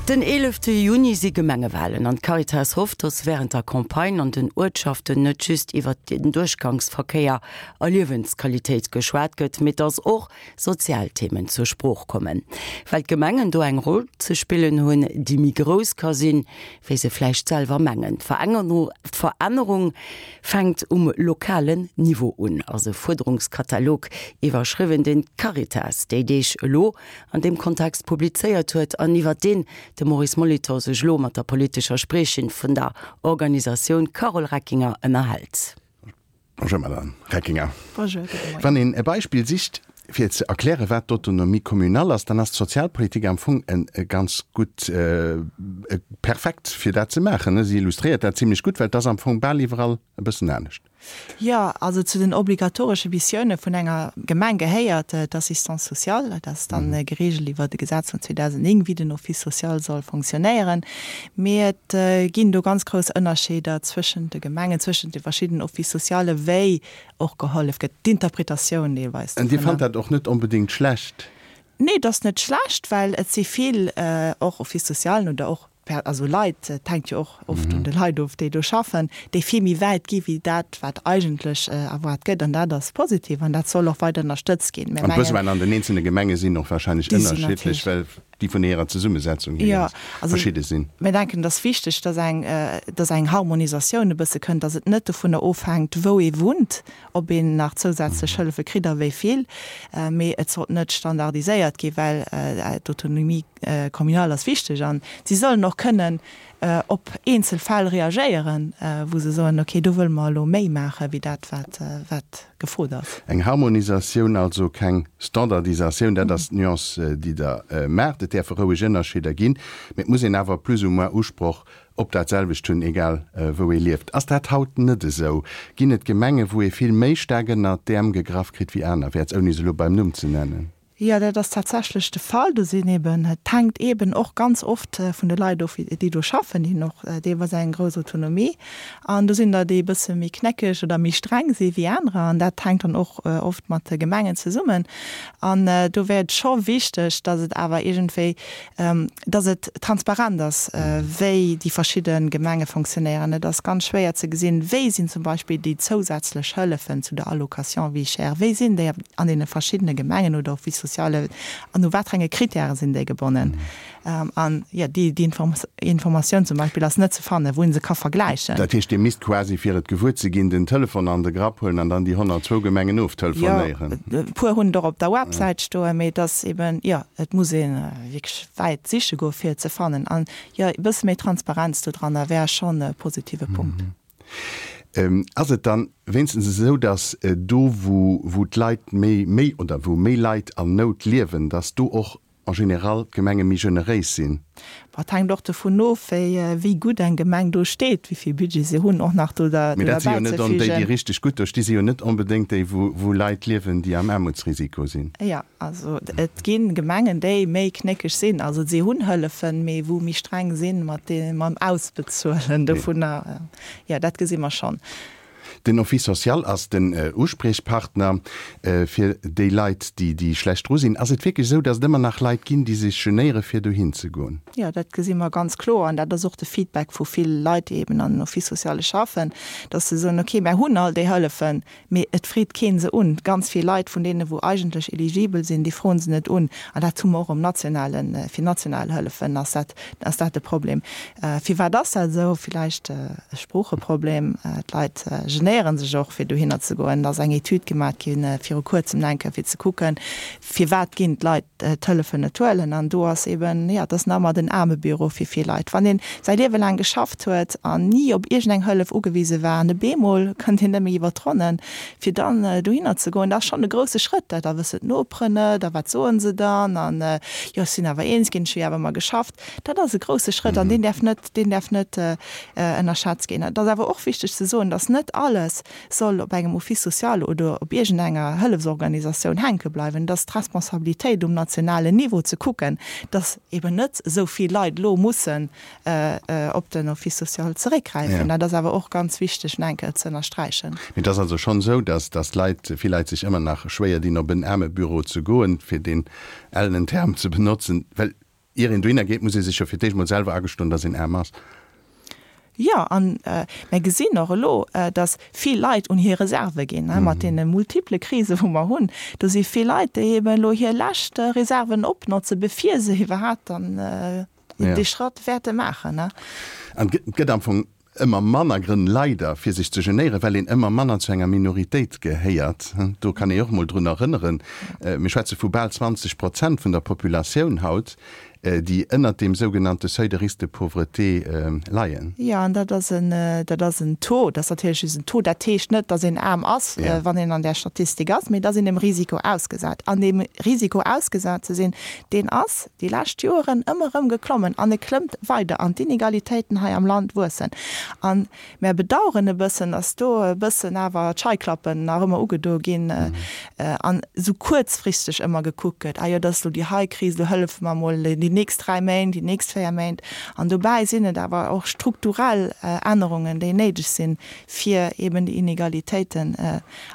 Den 11 Juni si Gemengewalen an d'Caritas hofft, datt wärend der Campagne an den Uertschaften net just iwwert den Duerchgangsverkéier a Liewensqualitéit geschwat gëtt, mee datt och sozial Themen zur Sprooch kommen. Well d'Gemengen do eng Roll ze spillen hunn, déi méi grouss ka sinn, wéi se vläicht selwer mengen. D'Verännerung fänkt um lokalen Niveau un, ass e Fuerderungskatalog iwwerschriwwen, deen d'Caritas déi Deeg elo an deem Kontext publizéiert huet an iwwer deen de Maurice Molitor sech elo mat der politescher Spriechin vun der Organisatioun Carole Reckinger ënnerhält. Bonjour Madame Reckinger. Bonjour, gudde Moien. Wann een e Beispill sicht fir ze erklären, wat d'Autonomie communale ass, dann ass d'Sozialpolitik am Fong e ganz gutt, perfekt fir dat ze maachen. Si illustréiert dat zimlech gutt, well et ass am Fong bal iwwerall e bëssen anescht. Jo, also zu den obligatoresche Missioune vun enger Gemeng gehéiert d'Assistance sociale. Dat ass dann gereegelt iwwer e Gesetz vun 2009, wéi den Office social soll fonctionnéieren. Mee et ginn do ganz grouss Ënnerscheeder zwëschent de Gemengen, zwëschent de verschiddenen Offices socialen, wéi och gehollef gëtt, d'Interpretatioun deelweis An Dir fannt dat och net onbedéngt schlecht? Nee, et ass net schlecht, well et si vill och Offices socialen oder och also Leit, et hänkt jo och oft un de Leit of, déi do schaffen, déi vill méi wäit gi wéi dat, wat eigentlech erwaart gëtt. An dat ass positiv an dat soll och weider ënnerstëtzt ginn. An d'Besoinen an den eenzelne Gemenge sinn och wahrscheinlech ënnerschiddlech, well déi vun hirer Zesummesetzung hier ganz verschidde sinn. Mir denken, et ass wichteg, dass eng, dass eng Harmonisatioun e bësse kënnt, dass et net dovunner ofhänkt, wou ee wunnt, ob een nach zousätzlech Hëllefe kritt a wéi vill, mee et sollt net standardiséiert ginn, well d'Autonomie communale ass wichteg an si sollen och kënnen op eenzel Fäll reagéieren, wou se soen, okay, do wëlle mer elo méi maache wéi dat, wat wat gefrot ass. Eng Harmonisatioun, also keng Standardisatioun, dat ass d'Nuance, déi Der maacht. Et däerfe roueg Ënnerscheeder ginn, mee et muss een awer plus ou moins Usproch op dat selwecht hunn, egal wou ee lieft. Ass dat haut net esou? Ginn et Gemengen, wou ee vill méi staark ënnert d'Äerm gegraff kritt wéi anerwäerts, ouni se elo beim Numm ze nennen? Jo, dat ass tatsächlech de Fall. Do sinn eben, et hänkt eben och ganz oft vun de Leit of, déi do schaffen. Déi hunn och deelweis eng grouss Autonomie. An do sinn der, déi e bësse méi knéckeg oder méi streng si wéi anerer. An dat hänkt dann och oft mat de Gemengen zesummen. An do wär et scho wichteg, datt et awer iergendwéi dass et transparent ass, wéi déi verschidde Gemenge fonctionnéieren. Et ass ganz schwéier ze gesinn, wéi sinn zum Beispill déi zousätzlech Hëllefen zu der Allocation vie chère, wéi sinn déi an deene verschiddene Gemengen oder Offices sociales an u wat fir enge Kritäre sinn déi gebonnen. An, jo, déi Informatioun zum Beispill ass net ze fannen, wou ee se ka vergläichen. Dat heescht, Dir misst quasi, fir et gewuer ze ginn, den Telefon an de Grapp huelen an dann déi 102 Gemengen oftelefonéieren. Jo, e puer hunn et och op der Websäit stoen, mee et ass eben, jo, et muss ee wierklech wäit siche goen, fir et ze fannen. An, jo, e bësse méi Transparenz do dranner wär schonn e positive Punkt. Ass et dann wéinstens esou, datt do, wou d'Leit méi, méi oder wou méi Leit an Nout liewen, datt do och en général d'Gemenge méi generéis sinn? Bon, et hänkt och dovun of, wéi gutt eng Gemeng do steet, wéi vill Budget se hunn, och nach do derbäi ze fügen. Mee dat si jo net on déi, déi richteg gutt do sti si jo net onbedéngt déi, wou Leit liewen, déi am Aarmutsrisiko sinn. Jo, also et gi Gemengen, déi méi knéckeg sinn. Also si hunn Hëllefen, mee wou méi streng sinn mat mam Ausbezuelen dovunner. Jo, dat gesi mer schonn. Den Office social ass den Uspriechpartner fir déi Leit, déi schlecht dru sinn. Ass et wierklech esou, datt et ëmmer nach Leit ginn, déi sech genéiere fir dohin ze goen? Jo, dat gesi mer ganz kloer an dat ass och de Feedback vu vill Leit, déi eben an den Office sociale schaffen, datt se soen, okay, mär hunn all déi Hëllefen, Mee et freet keen se un. Ganz vill Leit vun deene wou eigentlech eligibel sinn, déi froen se net un. An dat hu mer och um nationalen, fir national Hëllefen ass dat, ass dat de Problem. Firwat ass dat esou? Villäicht e Sproocheproblem. D'Leit genéiere sech och fir dohinner ze goen. Et ass eng Etüd gemat gi viru kuerzem enke fir ze kucken, Firwat ginn d'Leit d'Hëllefen net huelen? An do ass eben, jo, et ass nach ëmmer den Aarmebüro fir vill Leit. Wann een säi Liewe laang geschafft huet an ni op iergendeng Hëllef ugewise war an op eemol kënnt een net méi iwwer d'Ronnen, fir dann dohinner ze goen, dat ass schonn e grousse Schrëtt. Da wëssen d'Noperen net a wat soen se dann an, jo, ech sinn awer eens ginn, ech hu jo awer ëmmer geschafft. Dat ass e grousse Schrëtt an deen däerf net, deen däerf net ënnerschätzt ginn. Et ass awer och wichteg ze soen, dass net alles soll op engem Office social oder op iergendenger Hëllefsorganisatioun hänke bleiwen. Et ass d'Responsabilitéit um nationalen Niveau ze kucken, dass eben net esou vill Leit elo mussen op den Office social zeréckgräifen. Dat ass awer och ganz wichteg nach eng Kéier ze ënnersträichen. Mee et ass also schonn esou, dass dass Leit, vill Leit sech ëmmer nach schwéier dinn, op en Aarmebüro ze goen, fir deen ellenen Term ze benotzen, well. Ier een dohinner geet, muss ee sech jo fir d'éischt mol selwer agestoen, datt een aarm ass. Jo, an mir gesinn och elo, datt vill Leit un hir Reserve ginn, mat deene multiple Krise wou mer hunn. Do si vill Leit, déi eben elo hir lescht Reserven opnotzen, bevir se iwwerhaapt dann dee Schratt wäerte maachen. An et gëtt am Fong Ëmmer manner Grënn, leider, fir sech ze genéieren, well een ëmmer manner zu enger Minoritéit gehéiert. Do kann ee och mol drun erënneren, mir schwätze vu bal 20 Prozent vun der Populatioun haut, déi ënnert deem sougenannte Seuil de risque de pauvreté leien. Jo, an dat ass en, dat ass en Taux, dat ass natierlech just en Taux. Dat heescht net, datt een aarm ass, wann een an där Statistik ass, mee et ass een dem Risiko ausgesat. An deem Risiko ausgesat ze sinn, deen ass, déi lescht Joeren ëmmer erëm geklommen an e klëmmt weider an d'Inegalitéiten hei am Land wuessen. A mär bedauern e bëssen, dass do e bëssen awer d'Scheiklappen nach ëmmer ugedo ginn an esou kuerzfristeg ëmmer gekuckt gëtt, ah jo, dat ass elo déi hei Kris, elo hëllefe mer emol déi nächst 3 Méint, déi nächst 4 Méint. An dobäi sinn et awer och strukturell Ännerungen, déi néideg sinn, fir eben déi Inegalitéiten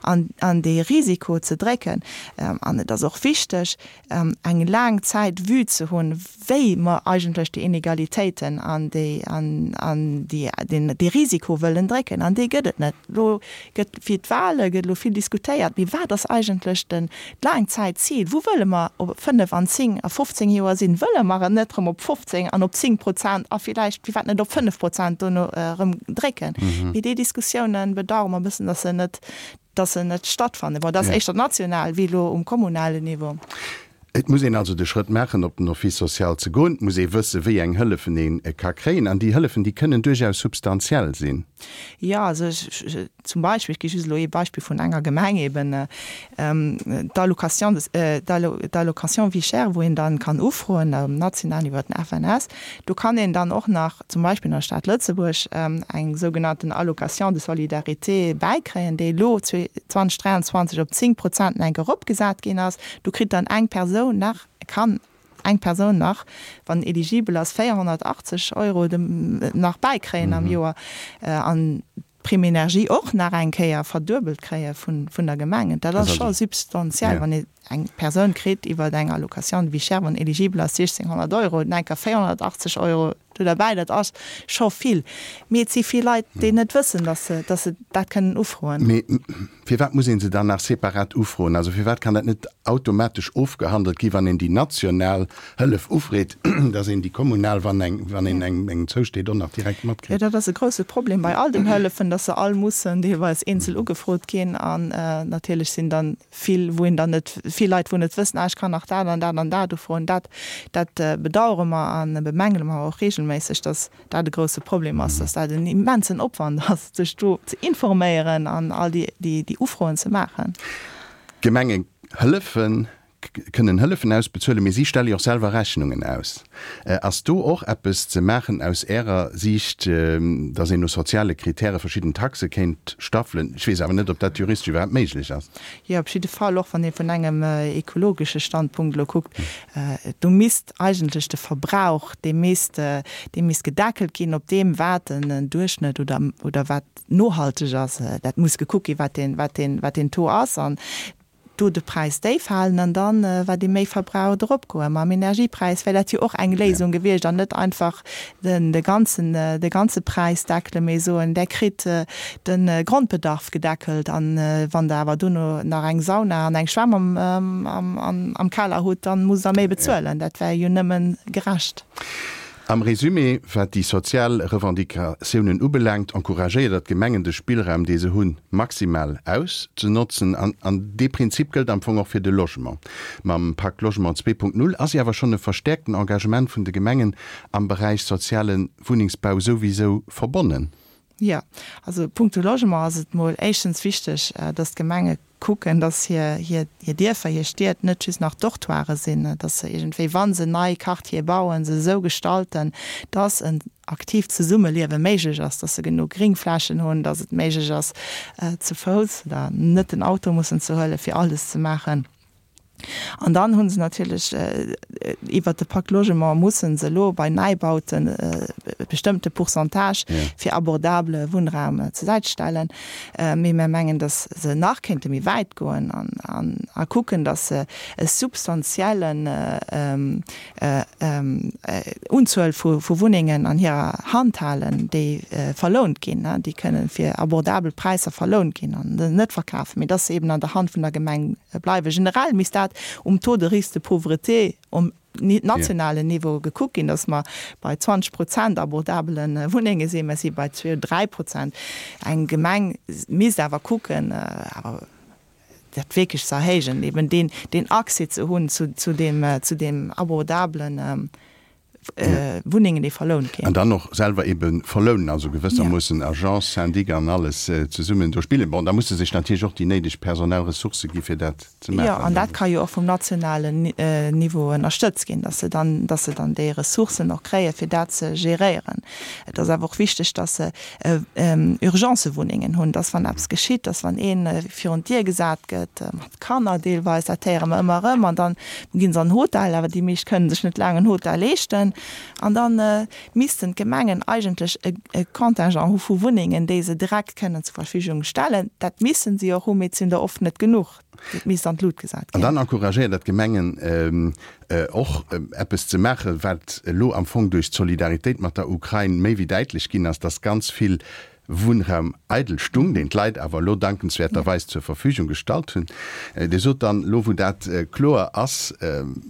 an dee Risiko ze drécken. An et ass och wichteg, eng laang Zäit Vue ze hunn, wéi mer eigentlech déi Inegalitéiten an déi, an déi, deen, dee Risiko wëllen drécken. An dee gëtt et net. Elo gëtt fir d'Wahle gëtt elo vill diskutéiert, mee wat ass eigentlech den Laangzäitzil? Wou wëlle mer op 5 an 10 a 15 Joer sinn? Wëlle mer et net erëm op 15 an op 10 Prozent a villäicht, firwat net op 5 Prozent dono erëm drécken? Mee déi Diskussiounen bedauere mer e bëssen, dass se net, dass se net stattfannen. Bon, dat ass éischter national wéi elo um kommunalen Niveau. Et muss een also de Schrëtt maachen, op den Office social ze goen. Et muss ee wëssen, wéi eng Hëllefen ee ka kréien. An déi Hëllefen, déi kënnen duerchaus substantiell sinn. Jo, also ech, zum Beispill, ech gi just elo ee Beispill vun enger Gemeng eben, d'Allocation de, d'Allocation vie chère, wou een dann kann ufroen um nationalen iwwer den FNS. Do kann een dann och nach zum Beispill an der Stad Lëtzebuerg eng sougenannten Allocation de solidarité bäikréien, déi elo 2023 op 10 Prozent enk eropgesat ginn ass. Do kritt dann eng Persoun nach, kann eng Persoun nach, wann eligibel ass, 480 Euro nach bäikréien am Joer an d'Prime énergie och nach eng Kéier verduebelt kréie vun der Gemeng. Dat ass scho substantiell, wann ee eng Persoun kritt iwwer eng Allocation de vie chère, wann eligibel ass, 1.600 Euro, dann enker 480 Euro do derbäi, dat ass scho vill. Mee et si vill Leit, déi net wëssen, datt se, datt se dat kënnen ufroen. Mee firwat muss ee se dann nach separat ufroen? Also firwat kann dat net automatesch ofgehandelt gi wann een déi national Hëllef ufreet, datt een déi kommunal, wann eng, wann een eng engem zousteet, och nach direkt matkritt? Jo, dat ass e grouse Problem bei all den Hëllefen, datt se all mussen deelweis eenzel ugefrot ginn. An natierlech sinn dann vill, wou een dann net, vill Leit, wou net wëssen, ah ech kann nach dat an dat an dat ufroen. Dat, dat bedauere mer a bemängele mer och regelméisseg, datt dat e grouse Problem ass, datt dat en immensen Opwand ass, sech do ze informéieren an all déi, déi, déi Ufroen ze maachen. D'Gemenge hëllefen kënnen Hëllefen ausbezuelen, mee si stelle jo och selwer Rechnungen aus. Ass do och eppes ze maachen aus Ärer Siicht, datt een no soziale Kritäre verschidden Taxe kéint staffelen? Ech weess awer net, ob dat juristesch iwwerhaapt méiglech ass. Jo, op jidde Fall, och wann ee vun engem ekologesche Standpunkt elo kuckt, do misst eigentlech de Verbrauch, dee misst, dee misst gedeckelt ginn op deem, wat en Duerchschnëtt oder, oder wat nohalteg ass. Dat muss gekuckt ginn, wat deen, wat deen, wat deen Taux ass. An do de Präis déif halen an dann, wat ee méi verbraucht, eropgoen. Mam Energiepräis wär dat jo och eng Léisung gewiescht an net einfach den de ganzen, de ganze Präis deckelen, mee soen, där kritt de Grondbedarf gedeckelt an wann Der awer dono nach eng Sauna an eng Schwämm am, am, am Keller hutt, dann musst Der méi bezuelen. Dat wär jo nëmmen gerecht. Am Résumé, wat déi sozial Revendicatiounen ubelaangt, encouragéiert Der d'Gemengen, de Spillraum, dee se hunn, maximal auszenotzen. An an dee Prinzip gëllt am Fong och fir de Logement. Mam Pacte Logement 2.0 ass jo awer schonn e verstäerkten Engagement vun de Gemengen am Beräich soziale Wunnengsbau souwisou verbonnen. Jo, also punkto Logement ass et mol éischtens wichteg, dass d'Gemenge kucken, dass hir, hir, hir Dierfer, hir Stied net just nach Dortoiren sinn, dass se iergendwéi, wa se nei Quartiere bauen, se esou gestalten, dass en aktiivt Zesummeliewe méiglech ass, dass se genuch Gringflächen hunn, dass et méiglech ass, ze Fouss oder net den Auto mussen ze huelen, fir alles ze maachen. An dann hu se natierlech iwwert de Pacte Logement musse se elo bei Neibauten. bestëmmte Pourcentage fir abordable Wunnraum zur Säit stellen. Mee mir mengen, datt se nach kéinte méi wäit goen a kucken, datt se e substantiellen Unzuel vu Wunnengen an hirer Hand halen, déi verlount ginn, déi kënne fir abordabel Präisser verlount ginn an net verkafen, mee dass se eben an der Hand vun der Gemeng bleiwen. Generell misst dat um Taux de risque de pauvreté um nationalen Niveau gekuckt ginn, dass mer bei 20 Prozent abordabele Wunnenge sinn. Mer si bei zwee oder dräi Prozent. Eng Gemeng misst awer kucken, awer dat wierklech ze erhéijen, eben deen, deen Accès ze hunn zu, zu deem, zu deem abordablen Wunnengen, déi verlount ginn. An dann och selwer ebe verlounen, also gewëssermoossen Agence, Syndic an alles zesummen do spillen. Bon, da musse sech natierlech och déi néideg personell Ressourcë gi fir dat ze maachen. Jo, an dat ka jo och vum nationalen Niveau ënnerstëtzt ginn, dass se dann, dass se dann déi Ressourcen och kréien, fir dat ze geréieren. Et ass awer och wichteg, dass se Urgencewunnengen hunn, dass wann eppes geschitt, dass wann ee virun d'Dier gesat gëtt, mat Kanner deelweis, dat héiere mer ëmmer erëm, an da ginn se an Hotel, awer déi meescht kënnen sech net laang en Hotel leeschten, an da missten d'Gemengen eigentlech e Contingent hu vu Wunnengen, déi se direkt kënnen zur Verfügung stellen. Dat missen si och hunn, mee et sinn der oft net genuch. Et misst an d'Lut gesat ginn. An dann encouragéiert Der d'Gemengen och eppes ze maachen, wat elo am Fong duerch d'Solidaritéit mat der Ukrain méi wéi däitlech ginn ass, dass ganz vill Wunnraum eidel stung, deen d'Leit awer elo dankenswäerterweis zur Verfügung gestallt hunn. Dir sot dann, elo wou dat kloer ass,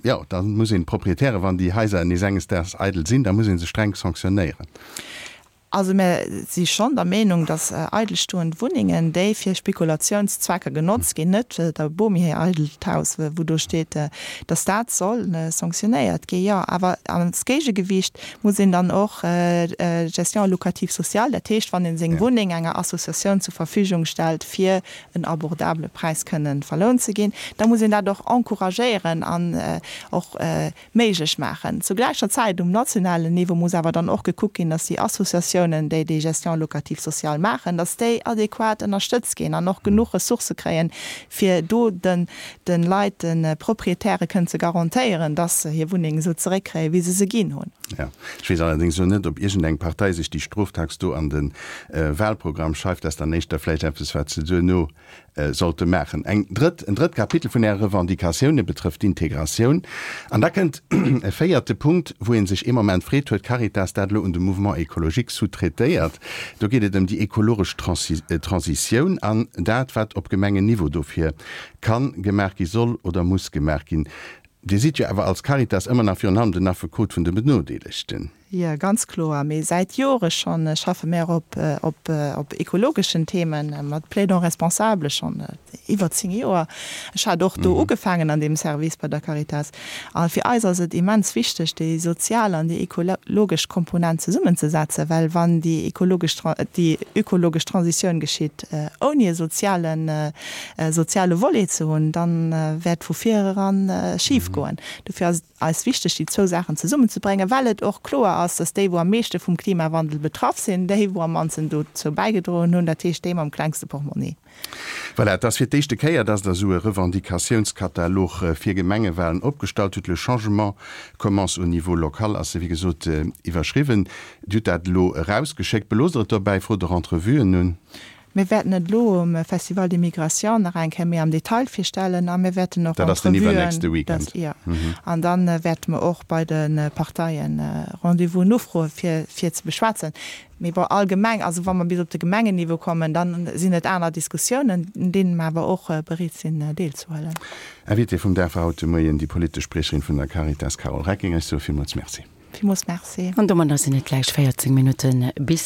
jo, da muss een d'Proprietären, wann déi Haiser nees enges Daags eidel sinn, da muss ee se streng sanktionéieren. Also mir si schonn der Meenung, datt eidelstoend Wunnengen, déi fir Spekulatiounszwecker genotzt ginn, net der Bomi hir eidelt Haus, wou do steet, datt dat soll sanktionéiert ginn, jo. Awer als Géigegewiicht muss een dann och d'Gestion locative sociale, dat heescht, wann ee seng Wunneng enger Associatioun zur Verfügung stellt, fir en abordabele Präis kënnen verlount ze ginn, da muss een dat och encouragéieren an och méiglech maachen. Zu gläicher Zäit um nationalen Niveau muss awer dann och gekuckt ginn, dass déi Associatiounen, déi déi Gestion locative sociale maachen, dass déi adequat ënnerstëtzt ginn an och genuch Ressourcë kréien, fir do den de Leit, de Proprietäre kënnen ze garantéieren, dass se hir Wunneng esou zeréckkréien, wéi se se ginn hunn. Jo. Ech weess allerdéngs elo net, ob iergendeng Partei sech déi Stroftax do an de Wahlprogramm schreift. Dat ass dann éischter vläicht eppes, wat se duerno sollte maachen. Eng drëtt, en drëtt Kapitel vun Äre Revendicatioune betrëfft d'Integratioun. An da kënnt e véierte Punkt, wou ee sech ee Moment freet, Huet d'Caritas dat elo un de Mouvement écologique sous-traitéiert? Do geet et ëm déi ekologesch Transitioun an dat, wat op Gemengenniveau dofir kann gemaach gi soll oder muss gemaach ginn. Dir sidd jo awer als Caritas ëmmer nach virun allem den Affekot vun de Benodeelegten. Jo, ganz kloer. Mee säit Jore schonn schaffe mär op op ekologeschen Themen mat Plaidons responsables, schonn iwwer 10 Joer. Ech hat och do ugefaangen an deem Service bei der Caritas. A fir eis ass et immens wichteg, déi sozial an déi ekologesch Komponent zesummenzesetzen, well wann déi ekologesch déi ökologesch Transitioun geschitt ouni e sozialen soziale Volet ze hunn, dann wäert vu vir eran schif goen. Dofir ass et eis wichteg, déi zwou Saachen zesummenzebréngen, well et och kloer ass, dass déi, wou am meeschte vum Klimawandel betraff sinn, déi, wou am mannsten dozou bäigedroen hunn, dat heescht déi mam klengste Portmonni. Voilà, et ass fir d'éischte Kéier, dass Der esou e Revendicatiounskatalog fir Gemengewahlen opgestallt hutt. Le changement commence au niveau local ass e, wéi gesot, iwwerschriwwen. Dir hutt dat elo erausgeschéckt. Beloosst Der et dobäi? Frot Der Entrevuen un? Mir wäerten et elo um Festival des Migrations nach eng Kéier méi am Detail virstellen a mir wäerten och Dat ass den iwwernächste Weekend. Jo. An da wäerte mer och bei de Parteien Rendez-vousen ufroe fir fir ze beschwätzen. Mee bon, allgemeng, also wa mer bis op de Gemengenniveau kommen, da sinn et aner Diskussiounen, un deene mer awer och bereet sinn deelzehuelen. Invitée vum Dag war haut de Moien déi politesch Spriecherin vun der Caritas, Carole Reckinger. Ech soe villmools Merci. Villmools Merci. An domadder sinn et gläich 14 Minutte bis.